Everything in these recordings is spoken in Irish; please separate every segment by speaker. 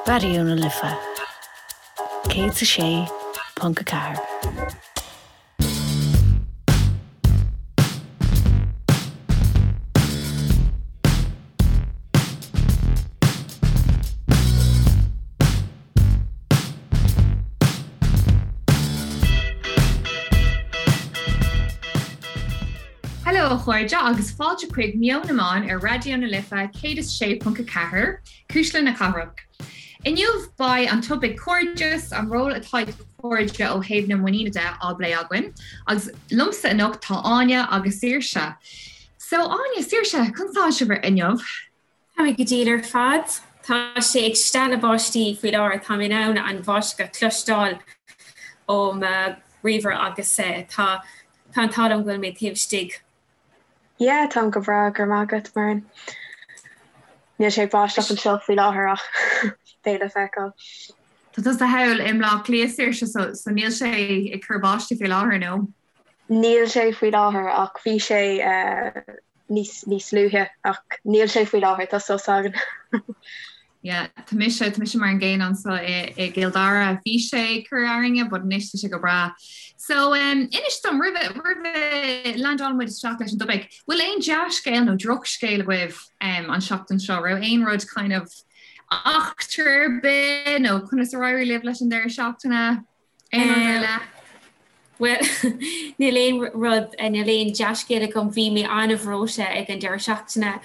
Speaker 1: Raidió na Life 106.4.
Speaker 2: Hello a chairde agus fáilte chuig Meon na Meán ar Raidió na Life 106.4, Cuisle na Cathrach. Inniu beidh an topaic cairdeas, an ról atá ag cairde ó thaobh na muiníne de á bplé againn agus liomsa anocht tá Áine agus Saoirse. So Áine, Saoirse, conas tá sibh inniu?
Speaker 3: Tá mé go diail ar fad. Tá sé ag stealladh báistí faoi láthair. Tá mé in ann an bháisteach a chloisteáil ó mo ríomhaire agus tá tá an t-ádh liom go bhfuil mé taobh istigh.
Speaker 4: Yeah, táim go breá, go raibh maith agat, Muireann. Níl sé ag báisteach anseo faoi láthair ach beidh le feiceáil.
Speaker 2: Tá tusa thall i mBleá Cliath, Saoirse, so so níl sé ag cur báistí faoi láthair, nó?
Speaker 4: Níl sé faoi láthair ach bhí sé níos níos luaithe ach níl sé faoi láthair, tá sos againn.
Speaker 2: Yeah, tá mise, tá mise mar an gcéanna anseo i i gCill Dara. Bhí sé ag cur orainne but anois tá sé go breá. So um, inis dom roimhe roimhe landálann muid isteach leis an dtopaic, bhfuil aon dea-scéal nó drochscéal agaibh um, an seachtain seo? Raibh aon rud kind of eachtra ar bith nó conas ar éirigh libh leis an deireadh seachtaine? Aon rud ar leith?
Speaker 3: Bhuel, níl aon rud, níl aon dea-scéal agam. Bhí mé an-bhreoite ag an deireadh seachtaine,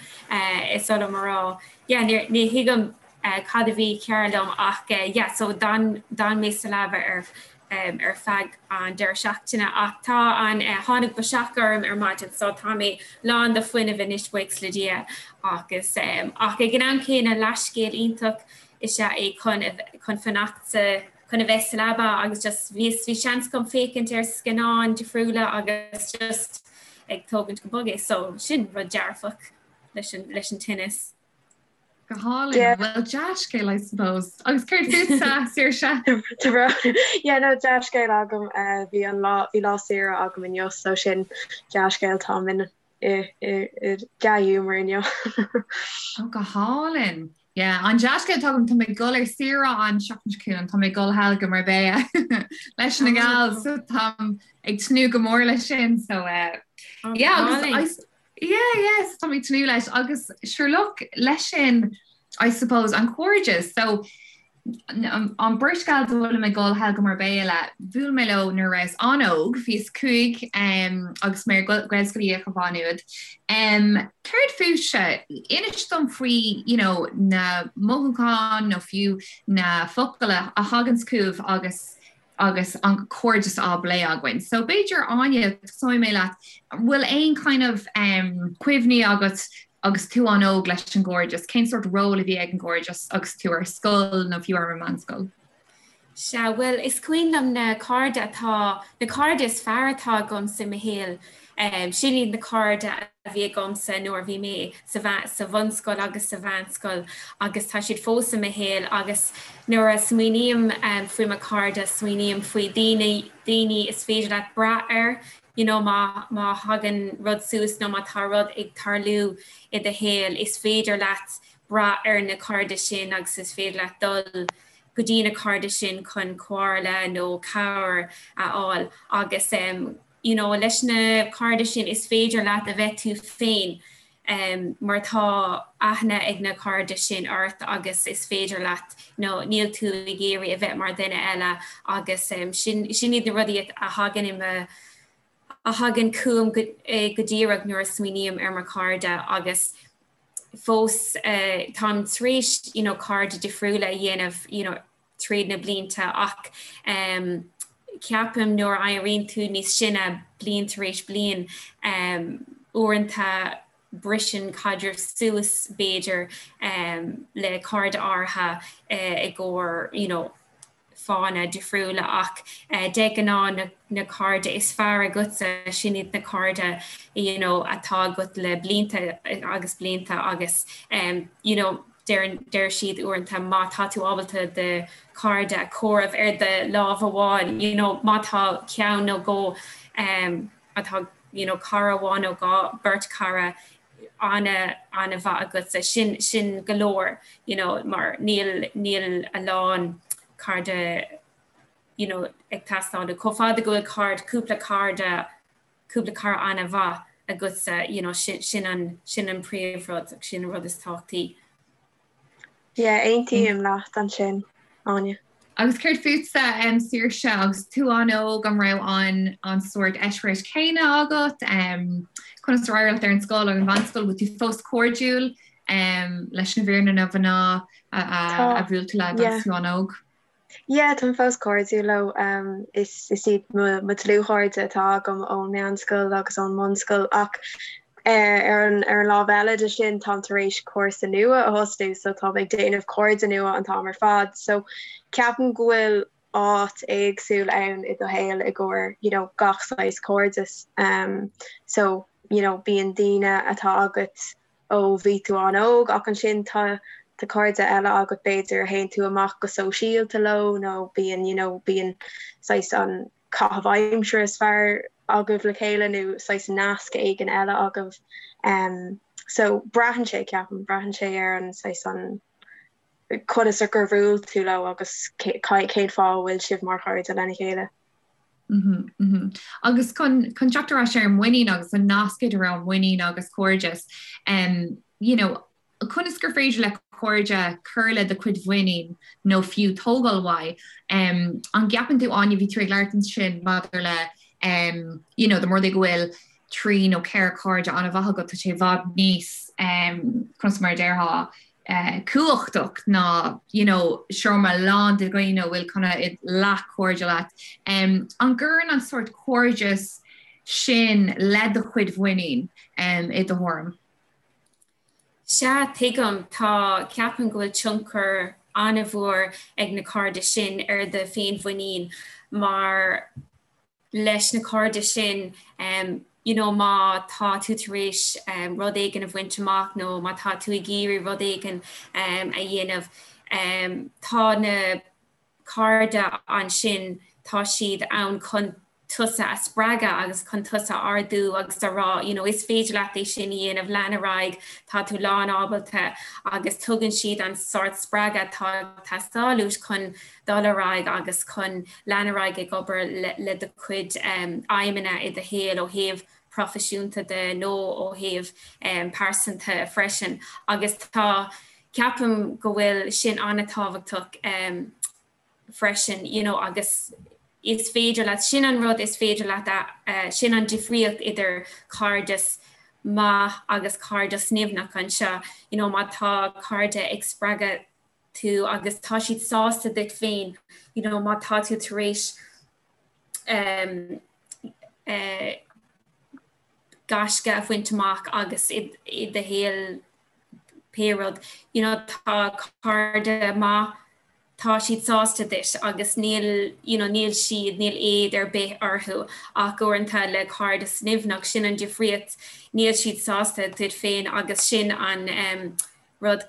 Speaker 3: is oth liom a rá. Yeah, ní, ní thuigim cad a bhí cearr liom ach yeah, so d'fhan, d'fhan mé sa leaba ar, ar feadh an deireadh seachtaine ach tá an, tháinig biseach orm ar maidin so tá mé lán de fuinneamh anois, buíochas le Dia. Agus, ach ag an am céanna, leathscéal iontach is ea é chun, chun fanacht sa, chun a bheith sa leaba agus just bhí bhí seans agam féachaint ar scannáin difriúla agus just ag tógaint go bog é so sin rud dearfach leis an leis an tinneas.
Speaker 2: Go hálainn. Yeah. Well dea-scéal I suppose. Agus céard fútsa,
Speaker 4: Saoirse? Yeah, no dea-scéal agam eh, bhí an lá bhí lá saoire agam inniu so sin dea-scéal táim in i i i dea-ghiúmar inniu.
Speaker 2: Oh go hálainn. Yeah, an dea-scéal atá agam, tá mé ag dul ar saoire an seachtain seo chugainn, tá mé ag dul thall go Marbella leis na gals, so táim ag tnúth go mór leis sin, so uh, oh, yeah, agus I, yeah, yeah, so tá mé ag tnúth leis agus sure look leis sin I suppose an cairdeas, so An bheirt gals a bhfuilim ag dul thall go Marbella le, bhuail mé leo nuair a rabhas an-óg, bhíos 5 agus mé ar Ghaelscoil Uí Fhiaich i Mhaigh Nuad. Céard fúibhse? Inis dom faoi you know na mothúcháin nó fiú na focail a thaganns chugaibh agus agus an cairdeas á bplé againn. So b'fhéidir Áine, tosóidh mé leat, an bhfuil aon kind of um, cuimhní agat agus tú an-óg leis an gcairdeas? Cén sórt ról a bhí ag an gcairdeas agus tú ar scoil nó fiú ar an meánscoil?
Speaker 3: Sea, bhuel, is cuimhin liom na cairde atá, na cairde is fearr atá agamsa i mo shaol, sin iad na cairde a bhí agamsa nuair a bhí mé sa sa bhunscoil agus sa mheánscoil agus tá siad fós i mo shaol agus nuair a smaoiním faoi mo chairde, smaoiním faoi daoine, daoine is féidir leat brath air, you know má má thagann rud suas nó má tá rud ag tarlú i do shaol, is féidir leat brath ar na cairde sin agus is féidir leat dul go dtí na cairde sin chun comhairle nó cabhair a fháil agus you know leis na cairde sin is féidir leat a bheith tú féin mar tá aithne ag na cairde sin ort agus is féidir leat you know níl tú ag iarraidh a bheith mar dhuine eile agus sin sin iad na rudaí a thagann i mo a thagann chugam go go díreach nuair a smaoiním ar mo chairde agus fós táim tar éis you know cairde difriúla a dhéanamh you know tríd na blianta ach ceapaim nuair a éiríonn tú níos sine bliain tar éis bliain uaireanta briseann caidreamh suas b'fhéidir le cairde áirithe i gcomhair you know fáthanna difriúla ach de ghnáth na cairde is fearr agatsa sin iad na cairde you know atá agat le blianta agus blianta agus you know deir deir siad uaireanta má tá tú ábalta do chairde a chomhaireamh ar do lámh amháin you know má tá ceann nó dhó um, atá you know, cara amháin nó dhá beirt cara. ana ana-mhaith agatsa, sin sin go leor you know mar níl níl a lán cairde you know ag teastáil chomh fada go bhfuil cairde cúpla cairde cúpla cara ana-mhaith agatsa you know sin sin an sin an príomhrud sin an rud is tábhachtaí.
Speaker 4: Yeah, aontaím leat ansin, Áine.
Speaker 2: Agus céard fútsa, Saoirse, agus tú an-óg, an raibh an an sórt eispéireas céanna agat? Conas ar éirigh leat ar an scoil agus an mheánscoil? Bhfuil tú fós cairdiúil leis na fir nó na mná a bhuail tú le agus tú an-óg?
Speaker 4: Yeah, táim fós cairdiúil leo. Is is iad mo mo dlúthchairde atá agam ón meánscoil agus ón mbunscoil ach ar an ar an lámh eile de sin táim tar éis cúrsa nua a thosnú so táim ag déanamh cairde nua an t-am ar fad. So ceapaim go bhfuil áit éagsúil ann i do shaol i gcomhair you know gach saghas cairdeas. So you know bíonn daoine atá agat ó bhí tú an-óg ach ansin tá tá cairde eile agat b'fhéidir a théann tú amach go sóisialta leo nó bíonn you know bíonn saghas an caitheamh aimsire is fearr agaibh le chéile nó saghas nasc éigin eile agaibh. Um, so braitheann sé ceapaim, braitheann sé ar an saghas an conas ar gur bhuail tú leo agus cén fáth a bhfuil sibh mar chairde lena chéile.
Speaker 2: Mm -hmm. Agus chun chun teacht ar ais ar an muinín agus an nasc idir an muinín agus cairdeas, um, you know, conas gur féidir le cairde cur le do chuid mhuinín nó fiú tógáil uaidh. Um, an gceapann tú Áine bhí tú ag labhairt ansin maidir le um, you know, dá mba rud é go bhfuil 3 nó 4 cairde an-mhaith agat tá sé i bhfad níos um, conas mar a déarfá uh, cumhachtach ná you know, seomra lán de dhaoine a bhfuil kind of leathchairde leat. Um, an gcuireann an sórt cairdeas sin le do chuid mhuinín um, i do thuairim?
Speaker 3: Sea, tuigim. Tá, ceapaim go bhfuil tionchar an-mhór ag na cairde sin ar do féinmhuinín mar leis na cairde sin you know má tá tú tar éis rud éigin a bhaint amach nó má tá tú ag iarraidh rud éigin a dhéanamh tá na cairde ansin tá siad ann chun tusa a spreagadh agus chun tusa a ardú agus a rá you know is féidir leat é sin a dhéanamh, lean ar aghaidh, tá tú lán ábalta agus tugann siad an sórt spreagadh atá ag teastáil uait chun dul ar aghaidh agus chun lean ar aghaidh ag obair le do chuid aidhmeanna i do shaol ó thaobh proifisiúnta de nó ó thaobh pearsanta freisin agus tá ceapaim go bhfuil sin an-tábhachtach freisin you know agus is féidir leat, sin an rud is féidir leat a, sin an difríocht idir cairdeas maith agus cairdeas nimhneach anseo you know má tá cairde ag spreagadh tú agus tá siad sásta duit féin you know má tá tú tar éis um, uh, gaisce a bhaint amach agus i, i do shaol pé rud you know tá cairde maith tá siad sásta duit agus níl you know níl siad níl éad ar bith orthu ach uaireanta le cairdeas nimhneach sin an difríocht níl siad sásta duit féin agus sin an um, rud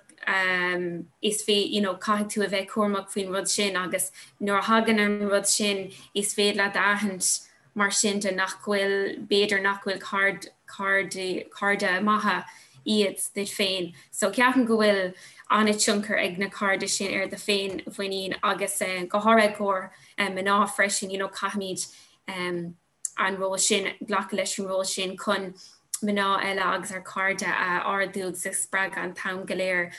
Speaker 3: is fé you know caithfidh tú a bheith cúramach faoin rud sin agus nuair a thagann an rud sin is féidir leat a aithint mar sin de nach bhfuil b'fhéidir nach bhfuil caird cairde cairde maithe iad duit féin. So ceapaim go bhfuil an-tionchar ag na cairde sin ar do féinmhuinín agus go háirithe i gcomhair mná freisin you know caithfimid um, an ról sin, glacadh leis an ról sin chun mná eile agus ár cairde a ardú agus a spreagadh an t-am go léir.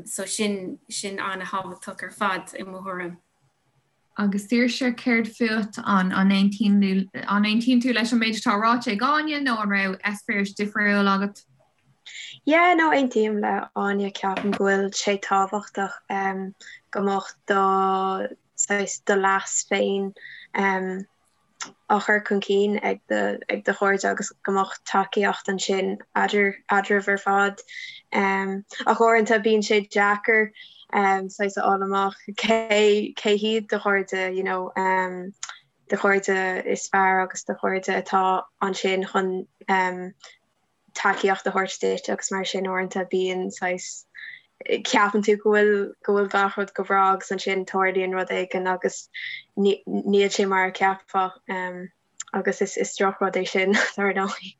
Speaker 3: So sin, sin an-thábhachtach ar fad i mo thuairim.
Speaker 2: Agus Saoirse, céard fút? An aontaíonn an aontaíonn tú leis an méid atá ráite ag Áine nó an raibh eispéireas difriúil agat?
Speaker 4: Yeah, no, aontaím le Áine, ceapaim go bhfuil sé tábhachtach go mbeadh do saghas do leas féin á chur chun cinn ag do ag do chairde agus go mbeadh tacaíocht ansin eadar eadraibh ar fad. Ach uaireanta bíonn sé deacair saghas a fháil amach cé cé hiad do chairde you know do chairde is fearr agus do chairde atá ansin chun tacaíocht a thabhairt duit agus mar sin uaireanta bíonn saghas ceapann tú go bhfuil go bhfuil gach rud go breá agus ansin tarlaíonn rud éigin agus níl sé mar a cheapfá agus is is drochrud é sin dar ndóigh.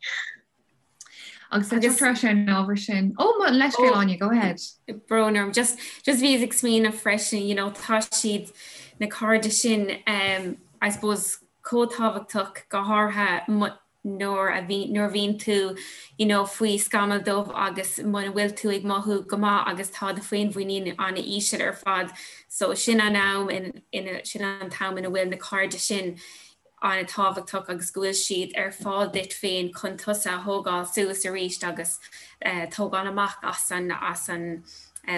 Speaker 2: Agus le teacht ar ais ar an ábhar sin, ó mo leithscéal Áine, go ahead.
Speaker 3: Brón orm, just just bhíos ag smaoineamh freisin, you know, tá siad na cairde sin um, I suppose chomh tábhachtach go háirithe nuair a bhí nuair a bhíonn tú you know, faoi scamall dubh agus muna bhfuil tú ag mothú go maith agus tá do féinmhuinín an-íseal ar fad. So sin an am in, in, sin an t-am ina bhfuil na cairde sin an-tábhachtach agus go bhfuil siad ar fáil duit féin chun tusa a thógáil suas arís agus tógáil amach as an as an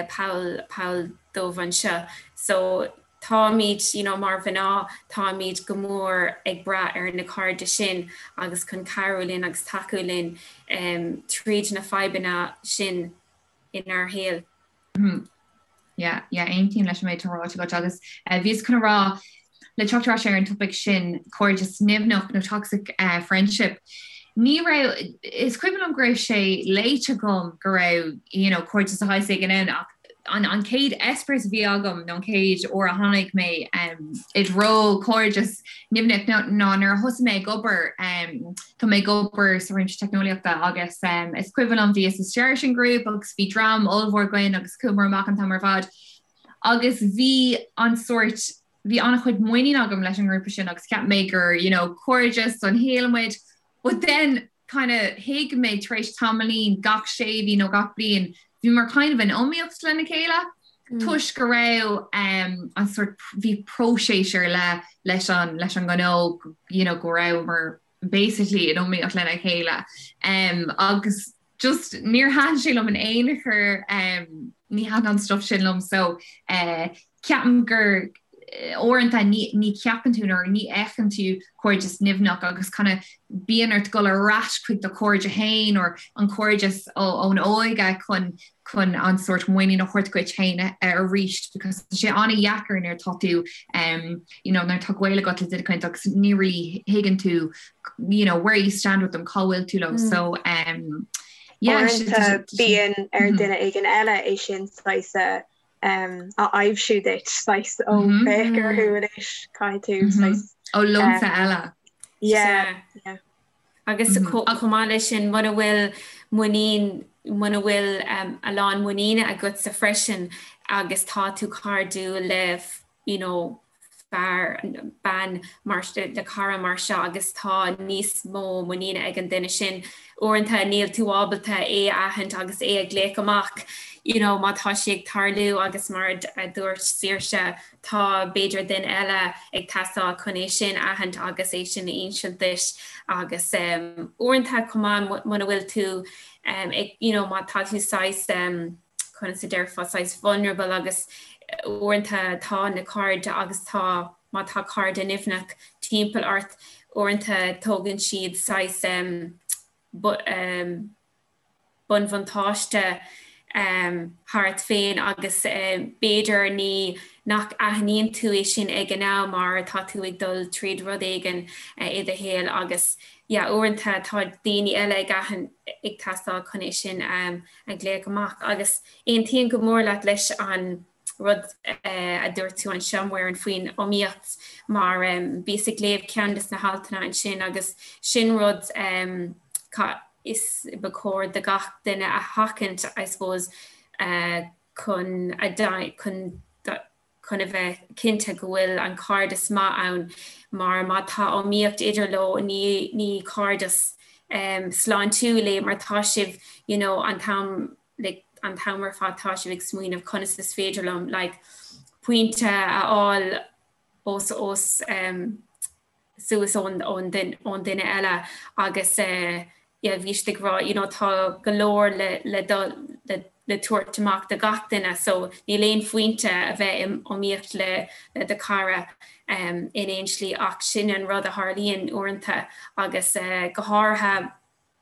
Speaker 3: poll poll dubh anseo. So táimid you know mar mhná táimid go mór ag brath ar na cairde sin agus chun cabhrú linn agus tacú linn um, tríd na fadhbanna sin inár shaol.
Speaker 2: Yeah, yeah, aontaím leis an méid atá ráite agat agus eh, bhíos chun a rá le teacht ar ais ar an topaic sin cairdeas nimhneach nó toxic eh, friendship. Ní raibh is cuimhin liom go raibh sé léite agam go raibh you know, cairdeas de shaghas éigin ann ach an, an chéad eispéireas a bhí agam nó an chéad uair a tháinig mé um, i dtreo cairdeas nimhneach ná nuair a thosaigh mé ag obair um, Tá mé ag obair sa réimse teicneolaíochta agus is cuimhin liom bhíos istigh san grúpa agus bhí dream ollmhór againn agus chuamar amach an t-am ar fad agus bhí an sórt bhí an-chuid muinín agam leis an ngrúpa sin agus cheap mé gur you know cairdeas don shaol muid but then kind of thuig mé tar éis tamaillín gach sé mhí nó gach bliain bhíomar kind of in iomaíocht lena chéile toisc go raibh um, an sort bhí próiseas ar leith leis an leis an ngnó you know, go rabhamar basically in iomaíocht lena chéile um, agus just níor thaitin sé liom in aon chor um, ní thaitin an stuff sin liom so uh, ceapaim gur eh, uaireanta ní, ní cheapann tú nó ní fheiceann tú cairdeas nimhneach agus kind of bíonn ort dul ar ais chuig do chairde féin or an cairdeas ón óige chun chun an sórt muinín a thabhairt duit féin arís because tá sé an-dheacair nuair atá tú um, you know, nuair atá gaol agat le duine éicint agus ní really thuigeann tú you know, where you stand with them cá bhfuil tú leo mm. so um,
Speaker 4: yeah, bíonn ar mm-hmm. duine éigin eile é sin saghas um, a aibhsiú duit saghas ó mm-hmm. féach orthu anois caithfidh tú mm-hmm. saghas
Speaker 2: ó lionsa eile.
Speaker 4: Yeah, yeah.
Speaker 3: Agus chomh maith leis sin, muna bhfuil muinín, muna bhfuil a lán muiníne agatsa freisin agus tá tú cairdiúil le you know fear, bean mar, le cara mar seo agus tá níos mó muiníne ag an duine sin, uaireanta níl tú ábalta é a aithint agus é a ghlaoch amach you know má tá sé ag tarlú agus mar a dúirt Saoirse, Tá, b'fhéidir, duine eile ag teastáil chun é sin a aithint agus é sin a insint duit agus uaireanta chomh maith muna bhfuil tú ag, you know, má tá tú saghas, conas a déarfá, saghas vulnerable agus uaireanta tá na cairde agus tá, má tá cairde nimhneach timpeall ort, uaireanta tógann siad saghas, bunbhuntáiste thart féin agus b'fhéidir ní nach aithníonn tú é sin ag an am mar tá tú ag dul tríd rud éigin i do shaol agus yeah uaireanta tá daoine eile ag aithint ag teastáil chun é sin a ghlaoch amach agus aontaím go mór leat leis an rud a dúirt tú anseo Muireann faoin iomaíocht mar bhíos ag léamh ceann des na haltanna ansin agus sin rud is ba chóir do gach duine a sheachaint I suppose chun a chun chun a bheith cinnte go bhfuil an cairdeas maith ann mar má tá iomaíocht idir leo ní ní cairdeas sláintiúil é mar tá sibh you know an t-am like an t-am ar fad tá sibh ag smaoineamh conas is féidir liom like pointe a fháil os os um, suas ón ón ón duine eile agus eh, yeah, bhí siad ag rá you know, tá go leor le le dul le le tabhairt amach do gach duine so níl aon phointe a bheith in iomaíocht le le do chara um, in aon slí ach sin an rud a tharlaíonn uaireanta agus uh, go háirithe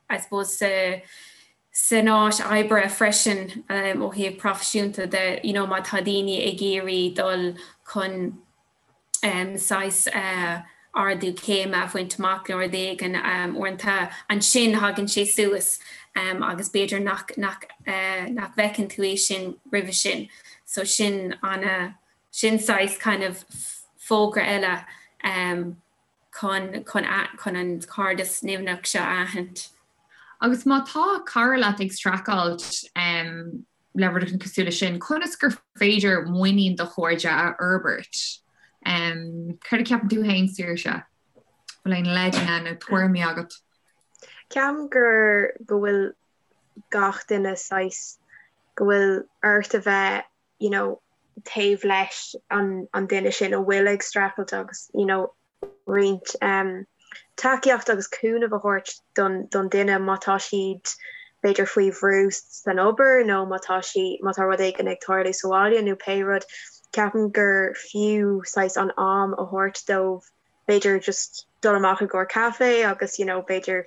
Speaker 3: I suppose sa san áit oibre freisin um, ó thaobh proifisiúnta de you know, má tá daoine ag iarraidh dul chun um, saghas uh, ardú céime a bhaint amach nó rud éigin um, uaireanta ansin thagann sé suas um, agus b'fhéidir nach, nach, uh, nach bhfeiceann tú é sin roimhe sin. So sin an sin saghas kind of fógra eile um, chun chun chun an cairdeas nimhneach seo a aithint.
Speaker 2: Agus má tá cara leat ag streachailt le rud éigin cosúil leis sin, conas gur féidir muinín do chairde a fhorbairt? Céard a cheapann tú féin, Saoirse? Bhfuil aon leideanna nó tuairimí agat?
Speaker 4: Ceapaim gur go bhfuil gach duine saghas go bhfuil ort a bheith you know taobh leis an an duine sin a bhfuil ag streachailt agus you know roinnt um tacaíocht agus cúnamh a thabhairt don don duine má tá siad b'fhéidir faoi bhrú san obair nó má tá sí má tá rud éigin ag tarlú sa bhaile nó pé rud ceapaim gur fiú saghas an am a thabhairt dóibh b'fhéidir just dul amach i gcomhair caife agus you know b'fhéidir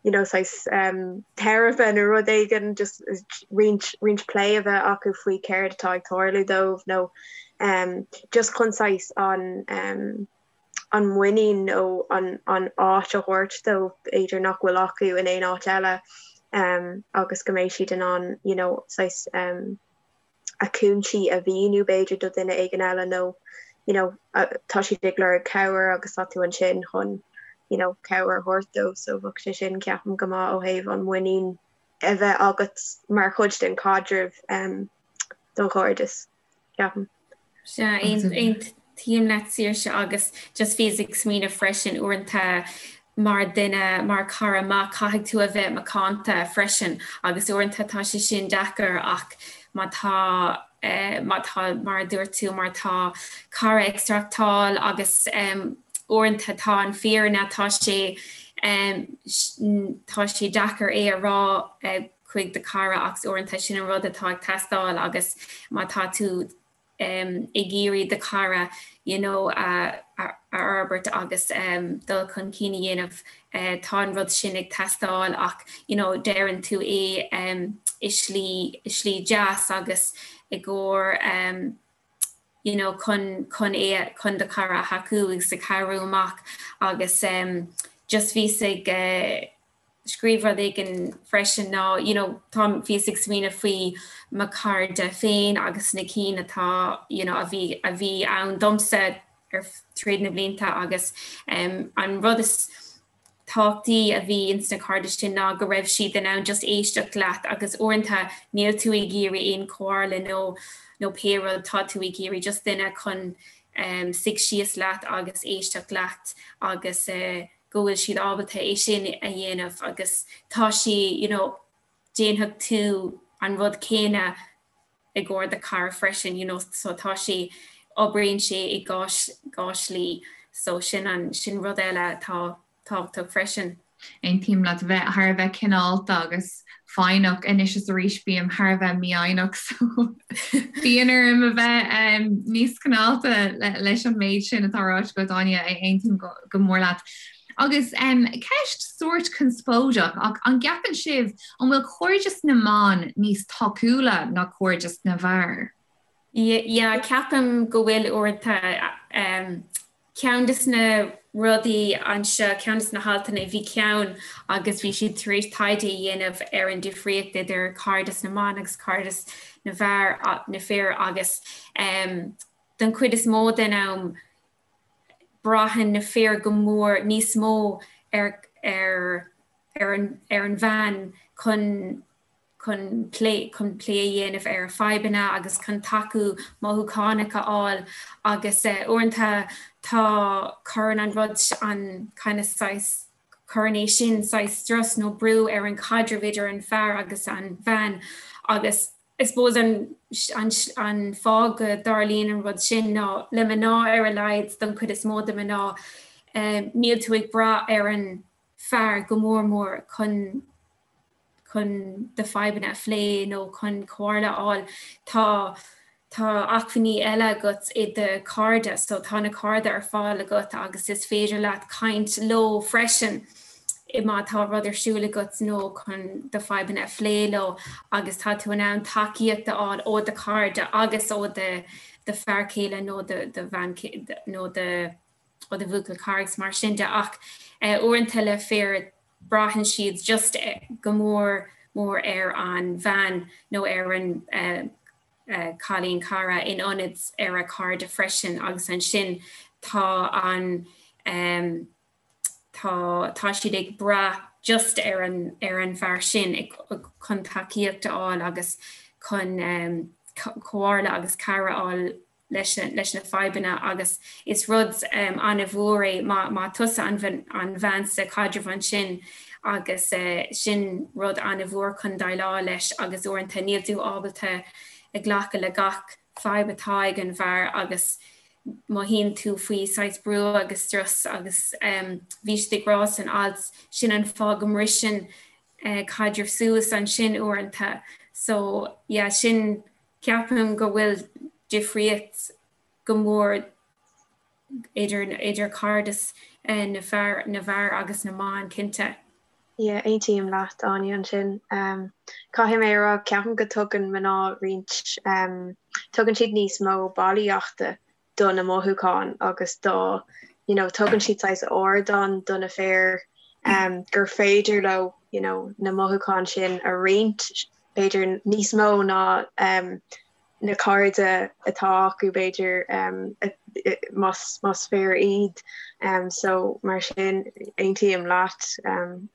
Speaker 4: you know saghas um teiripe nó rud éigin just roinnt roinnt plé a bheith acu faoi céard atá ag tarlú dóibh nó um just chun saghas an um an muinín nó an an áit a thabhairt dóibh b'fhéidir nach bhfuil acu in aon áit eile um agus go mbeidh siad in ann you know saghas um a gcúinsí a mhíniú b'fhéidir do dhuine éigin eile nó you know tá siad ag lorg cabhair agus tá tú ansin chun you know cabhair a thabhairt dóibh so bheadh sé sin ceapaim go maith ó thaobh an muinín a bheith agat mar chuid den chaidreamh um, don chairdeas ceapaim.
Speaker 3: Sea, aontaím leat Saoirse agus just bhíos ag smaoineamh freisin uaireanta mar duine, mar cara maith caithfidh tú a bheith macánta freisin agus uaireanta tá sé sin deacair ach má tá má tá mar a dúirt tú má tá cara ag streachtáil agus uaireanta tá an fírinne tá sé tá sé deacair é a rá chuig do chara ach uaireanta sin an rud atá ag teastáil agus má tá tú ag iarraidh do chara you know a fhorbairt agus dul chun cinn a dhéanamh tá an rud sin ag teastáil ach you know deireann tú é i slí i slí deas agus i gcomhair you know chun chun é chun do chara a thacú agus a cabhrú amach agus just bhíos ag scríobh rud éigin freisin ná you know tá bhíos ag smaoineamh faoi mo chairde féin agus na cinn atá you know a bhí a bhí ann domsa ar tríd na blianta agus um, an rud is tábhachtaí a bhí ins na cairde sin ná go raibh siad in ann just éisteacht leat agus uaireanta níl tú ag iarraidh aon chomhairle nó nó pé rud tá tú ag iarraidh just duine chun um, suigh síos leat agus éisteacht leat agus uh, go bhfuil siad ábalta é sin a dhéanamh agus tá sí you know déanfaidh tú an rud céanna i gcomhair do chara freisin you know so tá sé oibríonn sé i dhá dhá shlí so sin an sin rud eile atá tábhachtach freisin.
Speaker 2: Aontaím leat bheith thar a bheith cineálta agus foighneach anois is arís bím thar a bheith mífhoighneach so bíonn orm a bheith níos cineálta leis an méid sin atá ráite agat Áine, aontaím go mór leat. Agus ceist sórt conspóideach ach an gceapann sibh an bhfuil cairdeas na mban níos tacúla ná cairdeas na bhfear?
Speaker 3: Yeah, ceapaim go bhfuil uaireanta. Ceann de na rudaí anseo, ceann de na haltanna, bhí ceann agus bhí siad tar éis taighde a dhéanamh ar an difríocht idir cairdeas na mban agus cairdeas na bhfear, na fir agus don chuid is mó den am braitheann na fir go mór, níos mó ar ar ar an ar an bhean chun chun plé chun plé a dhéanamh ar a fadhbanna agus chun tacú mothúchánach a fháil agus uaireanta tá cuireann an rud an kind of saghas cuireann é sin saghas strus nó brú ar an chaidreamh idir an fear agus an bhean agus I suppose an an an fáth go dtarlaíonn an rud sin ná le mná ar a laghad don chuid is mó de mná níl tú ag brath ar an fear go mór mór chun chun do fadhbanna a phlé nó chun comhairle a fháil, tá tá acmhainní eile agat i do chairde, so tá na cairde ar fáil agat agus is féidir leat caint leo freisin má tá rud ar siúl agat nó chun do fadhbanna a phlé leo agus tá tú in ann tacaíocht a fháil ó do chairde agus ó do do fear céile nó do do bhean nó do ó do bhuachaill cara agus mar sin de ach uaireanta le fir braitheann siad just go mór mór ar an bhean nó ar an cailín cara in ionad ar a cairde freisin agus ansin tá an tá tá siad ag brath. just ar an ar an bhfear sin chun tacaíocht a fháil agus chun comhairle agus cabhair a fháil leis leis na fadhbanna agus is rud an-mhór é má má tusa an an bhean sa chaidreamh ansin agus sin rud an-mhór chun déileáil leis agus uaireanta níl tú ábalta ag glacadh le gach fadhb atá ag an bhfear agus mothaíonn tú faoi saghas brú agus strus agus bhí siad ag rá san alt sin an fáth go mbriseann caidreamh suas ansin uaireanta. So yeah sin ceapaim go bhfuil difríocht go mór idir idir cairdeas na fear na bhfear agus na mban cinnte.
Speaker 4: Yeah, aontaím leat, Áine, ansin. Caithfidh mé a rá, ceapaim go dtugann mná roinnt, tugann siad níos mó bailíochta do na mothúcháin agus do, you know, tugann siad saghas ardán do na fir gur féidir leo, you know, na mothúcháin sin a roinnt, b'fhéidir níos mó ná na cairde atá acu b'fhéidir más fir iad. So mar sin aontaím leat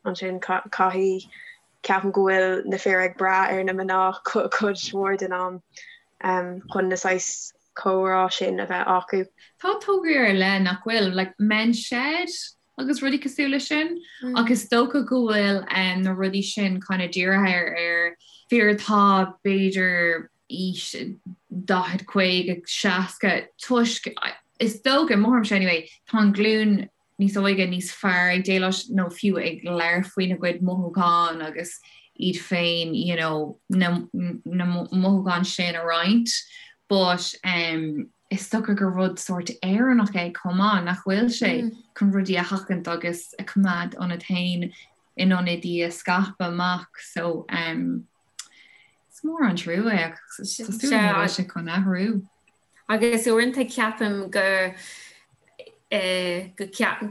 Speaker 4: ansin caithfidh, ceapaim go bhfuil na fir ag brath ar na mná cuid mhór den am chun na saghas comhrá sin a bheith acu.
Speaker 2: Tá tograí ar leith nach bhfuil, like Men's Shed agus rudaí cosúil leis sin ach is dócha go bhfuil na rudaí sin kind of dírithe ar fir atá b'fhéidir aois 40, 50, 60 toisc is dócha, mo thuairimse anyway, tá an glúin níos óige níos fearr ag déileáil nó fiú ag labhairt faoina gcuid mothúchán agus iad féin you know na na mothúcháin sin a roinnt but um, is dócha gur rud sórt Éireannach é chomh maith, nach bhfuil sé chun rudaí a sheachaint agus a choimeád ionat féin in ionad í a scaipeadh amach so um, is mór an trua é ach tá súil agam go bhfuil sé chun athrú.
Speaker 3: Agus uaireanta ceapaim go go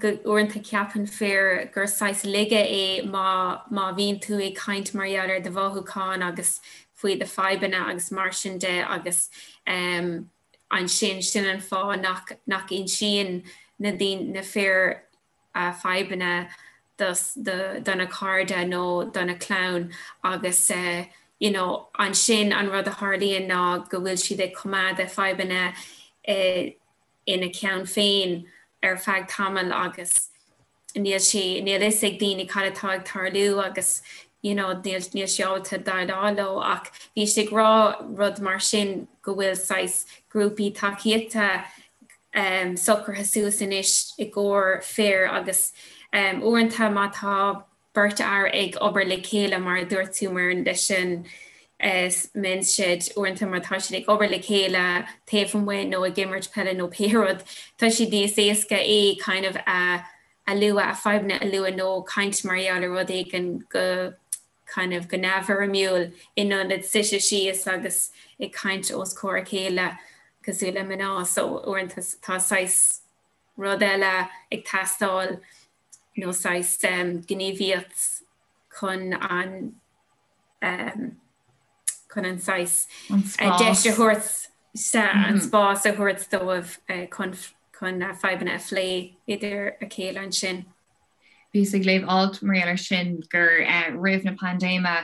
Speaker 3: go uaireanta ceapann fir gur saghas laige é má má bhíonn tú ag caint mar gheall ar do mhothúcháin agus faoi do fadhbanna agus mar sin de agus um, ansin sin an fáth nach nach insíonn na daoine na fir a fadhbanna do do na cairde nó do na clann agus eh, you know, ansin an rud a tharlaíonn ná go bhfuil siad ag coimeád a fadhbanna eh, ina gceann féin ar feadh tamaill agus níl sé, níl fhios ag daoine cad atá ag tarlú agus you know, níl, níl sé ábalta déileáil leo ach bhí sé ag rá rud mar sin go bhfuil saghas grúpaí tacaíochta um, socraithe suas anois i gcomhair fir agus um, uaireanta má tá beirt fhear ag obair le chéile mar a dúirt tú Muireann leis an Men's Shed uaireanta má tá siad ag obair le chéile taobh amuigh nó ag imirt peile nó pé rud tá sé níos éasca é kind of a a lua a fadhbanna a lua nó caint mar gheall ar rud éigin go kind of go neamhfhoirmiúil in ionad suite síos agus ag caint os comhair a chéile cosúil le mná so uaireanta tá saghas rud eile ag teastáil nó saghas gníomhaíocht chun an chun an saghas deis a thabhairt an spás a thabhairt dóibh chun chun na fadhbanna a phlé idir a chéile ansin.
Speaker 2: Bhíos ag léamh alt mar gheall air sin gur roimh na paindéime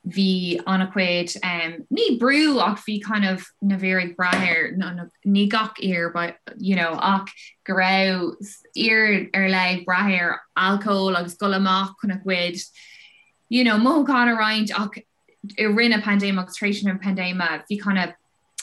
Speaker 2: bhí an-chuid, ní brú ach bhí kind of na fir ag brath ar, ní gach fhear but you know ach go raibh fir ar leith ag brath ar alcól agus dul amach chun a gcuid you know mothúchán a roinnt ach i rith na paindéime agus tar éis na paindéime bhí kind of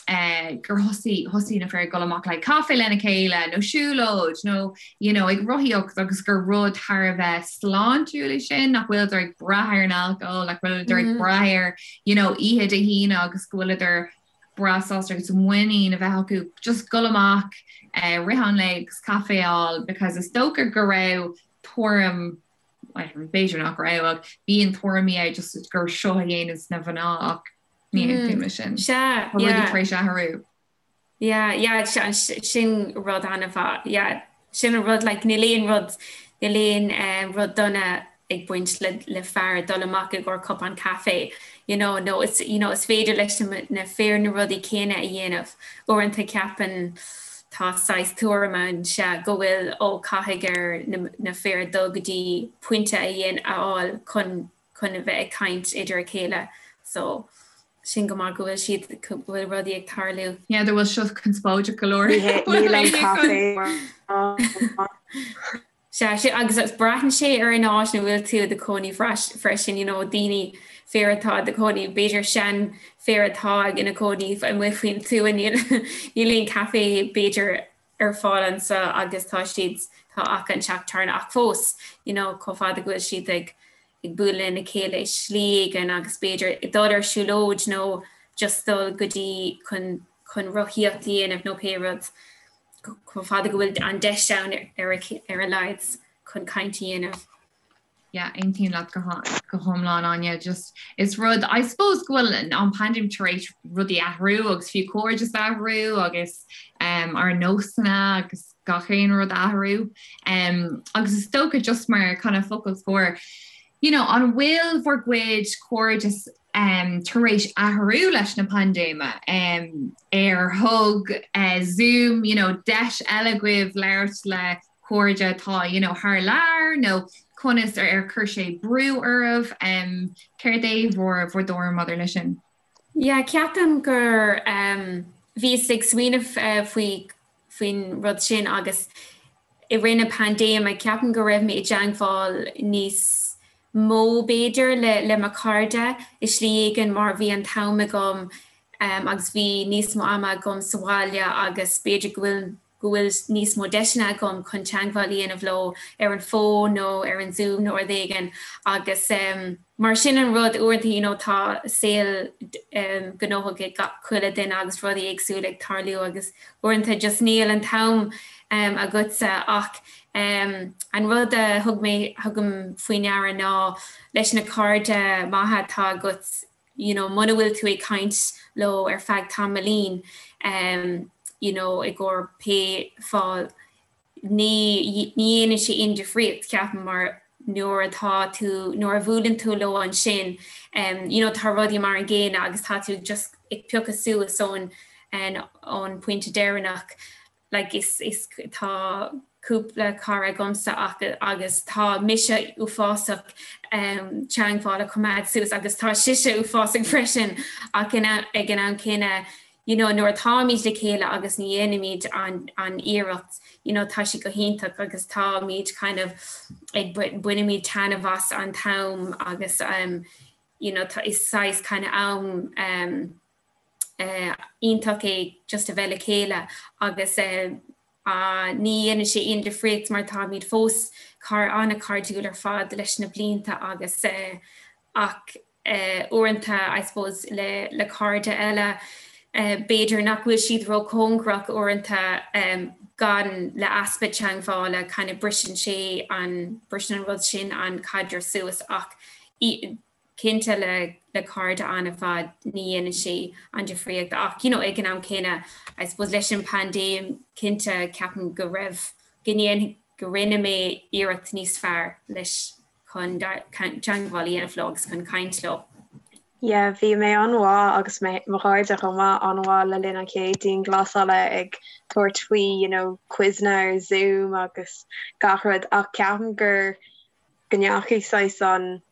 Speaker 2: gur thosaigh thosaigh na fir ag dul amach le caife lena chéile nó siúlóid nó you know ag rothaíocht agus gur rud thar a bheith sláintiúil é sin nach bhfuileadar ag brath ar an alcól nach bhfuileadar ag brath ar you know oíche Dé hAoine agus go bhfuileadar breá sásta agus muinín a bheith acu just dul amach uh, rith an lae agus caife a fháil because is dócha go raibh tuairim b'fhéidir nach raibh ach bíonn tuairimí é just gur seo a dhéananns na mná ach Ní aontaím leis sin.
Speaker 3: Sea,
Speaker 2: Tá rudaí
Speaker 3: yeah.
Speaker 2: tar éis athrú.
Speaker 3: Yeah, yeah, sin rud an-mhaith. Yeah, sin an rud, like, níl aon rud, níl aon eh, rud dona ag baint le, le fear dul amach i gcomhair cupán caife, you know, nó is, you know, is féidir leis na, na fir na rudaí céanna a dhéanamh. Uaireanta ceapann Tá saghas tuairim ann, sea, go bhfuil, ó, caithfidh ar na fir dul go dtí pointe a dhéan, a fháil chun, chun a bheith ag caint idir a chéile. So, sin go maith go bhfuil siad, go bhfuil rudaí ag tarlú.
Speaker 2: Yeah, bhfuil seo conspóideach go leor.
Speaker 4: Níl an caife
Speaker 3: Sea, sin, agus braitheann sé ar an áit ina bhfuil tú i do chónaí freisin, you know, daoine, fir atá i do chónaí, b'fhéidir seanfhir atá ina chónaí amuigh faoin tuath, níl, níl aon caife b'fhéidir ar fáil anseo agus tá siad, tá ach an teach tábhairne ach fós, you know, chomh fada go bhfuil siad ag, ag bualadh lena chéile i slí éigin agus b'fhéidir ag dul ar siúlóid nó just dul go dtí chun, chun rothaíocht a dhéanamh nó pé rud. chomh fada go bhfuil an deis ann ar a laghad chun caint a dhéanamh.
Speaker 2: Yeah, aontaím leat go hiomlán Áine, just is rud I suppose go bhfuil an paindéim tar éis rudaí athrú agus fiú cairdeas a athrú agus um, ár nósanna agus gach aon rud athrú. Um, agus is dócha just mar kind of focal scoir, you know, an bhfuil bhur gcuid cairdeas tar éis athrú leis na paindéime, ar thug Zoom you know deis eile dhaoibh labhairt le cairde atá you know thar lear nó conas ar chuir sé brú oraibh? Céard é bhur bhur dtuairim maidir leis sin?
Speaker 3: Yeah, ceapaim gur bhíos ag smaoineamh faoi faoin rud sin agus i rith na paindéime ceapaim go raibh mé i dteangmháil níos mó b'fhéidir le le mo chairde i slí éigin mar bhí an t-am agam agus bhí níos mó ama agam sa bhaile agus b'fhéidir go bhfuil go bhfuil níos mó deiseanna agam chun teangmháil a dhéanamh leo ar an bhfón nó ar an Zoom nó rud éigin agus mar sin an rud uaireanta you know tá saol gnóthach ag gach chuile duine agus rudaí éagsúla ag tarlú agus uaireanta just níl an t-am agatsa ach an rud a thug mé thugaim faoi ndeara ná leis na cairde maithe atá agat you know muna bhfuil tú ag caint leo ar feadh tamaillín you know i gcomhair pé fáth ní dhéanann sé aon difríocht, ceapaim, mar nuair atá tú, nuair a bhuaileann tú leo ansin, you know, tá rudaí mar an gcéanna agus tá tú just ag piocadh suas ón, ón pointe deireanach. Like, is, is, tá cúpla cara agamsa ach, agus tá mise uafásach teangmháil a choimeád suas agus tá sise uafásach freisin ach ag an am céanna, you know nuair atáimid le chéile agus ní dhéanaimid an an iarracht you know tá sé go hiontach agus táimid kind of ag bainimid taitneamh as an t-am agus um you know tá is saghas kind of am um eh iontach é just a bheith le chéile agus eh ní dhéanann sé aon difríocht mar táimid fós car an-chairdiúil ar fad leis na blianta agus eh ach uaireanta, I suppose, le le cairde eile, b'fhéidir nach bhfuil siad róchóngarach uaireanta gan le easpa teangmhála kind of briseann sé an, briseann an rud sin an caidreamh suas ach cinnte le le cairde an-mhaith ní dhéanann sé an difríocht ach you know ag an am céanna I suppose leis an paindéim cinnte ceapaim go raibh, go ndéan, go rinne mé iarracht níos fearr leis chun teangmháil a dhéanamh leo agus chun caint leo.
Speaker 4: Yeah, bhí mé an-mhaith agus mé, mo chairde chomh maith, an-mhaith le linn an chéad dianghlasála ag tabhairt faoi, you know, quizeanna ar Zoom agus gach rud ach ceapaim gur, go ndeachaigh saghas an,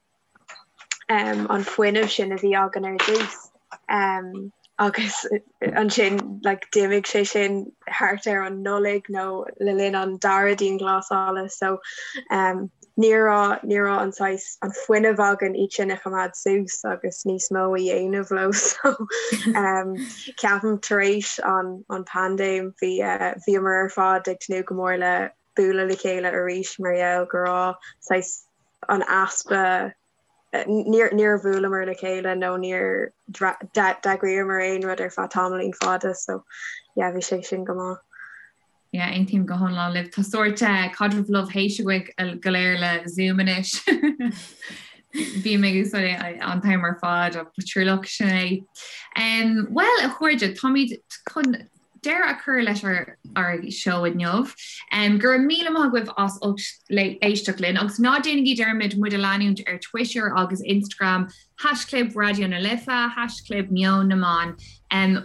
Speaker 4: an fuinneamh sin a bhí againn ar dtús agus ansin like d'imigh sé sin thart ar an Nollaig nó le linn an dara dianghlasála so ní raibh ní raibh an saghas an fuinneamh againn iad sin a choimeád suas agus níos mó a dhéanamh leo so ceapaim tar éis an an paindéim bhí bhíomar ar fad ag tnúth go mór le bualadh le chéile arís mar gheall go raibh saghas an easpa, níor níor bhuaileamar le chéile nó níor d'eagraíomar aon rud ar feadh tamaillín fada so yeah bhí sé sin go maith.
Speaker 2: Yeah, aontaím go hiomlán libh. Tá sórt caidreamh love hate againn go léir le Zoom anois. Bím ag úsáid é an t-am ar fad ach ba trua sin é. Bhuel, a chairde, táimid chun deireadh a chur leis ár. ár seó inniu. Go raibh míle maith agaibh as ucht éisteacht linn agus ná déanaigí dearmad muid a leanúint ar Twitter agus Instagram, haischlib Raidió na Life, haischlib Meon na mBan.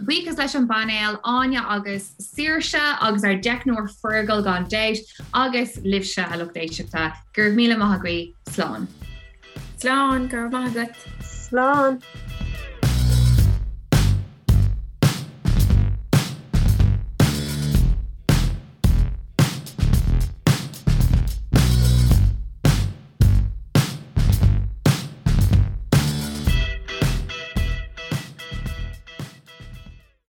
Speaker 2: Buíochas leis an bpainéal, Áine agus Saoirse agus ár dteicneoir Fergal gan dabht agus libhse a lucht éisteachta. Go raibh míle maith agaibh. Slán.
Speaker 3: Slán, go raibh maith agat.
Speaker 4: Slán.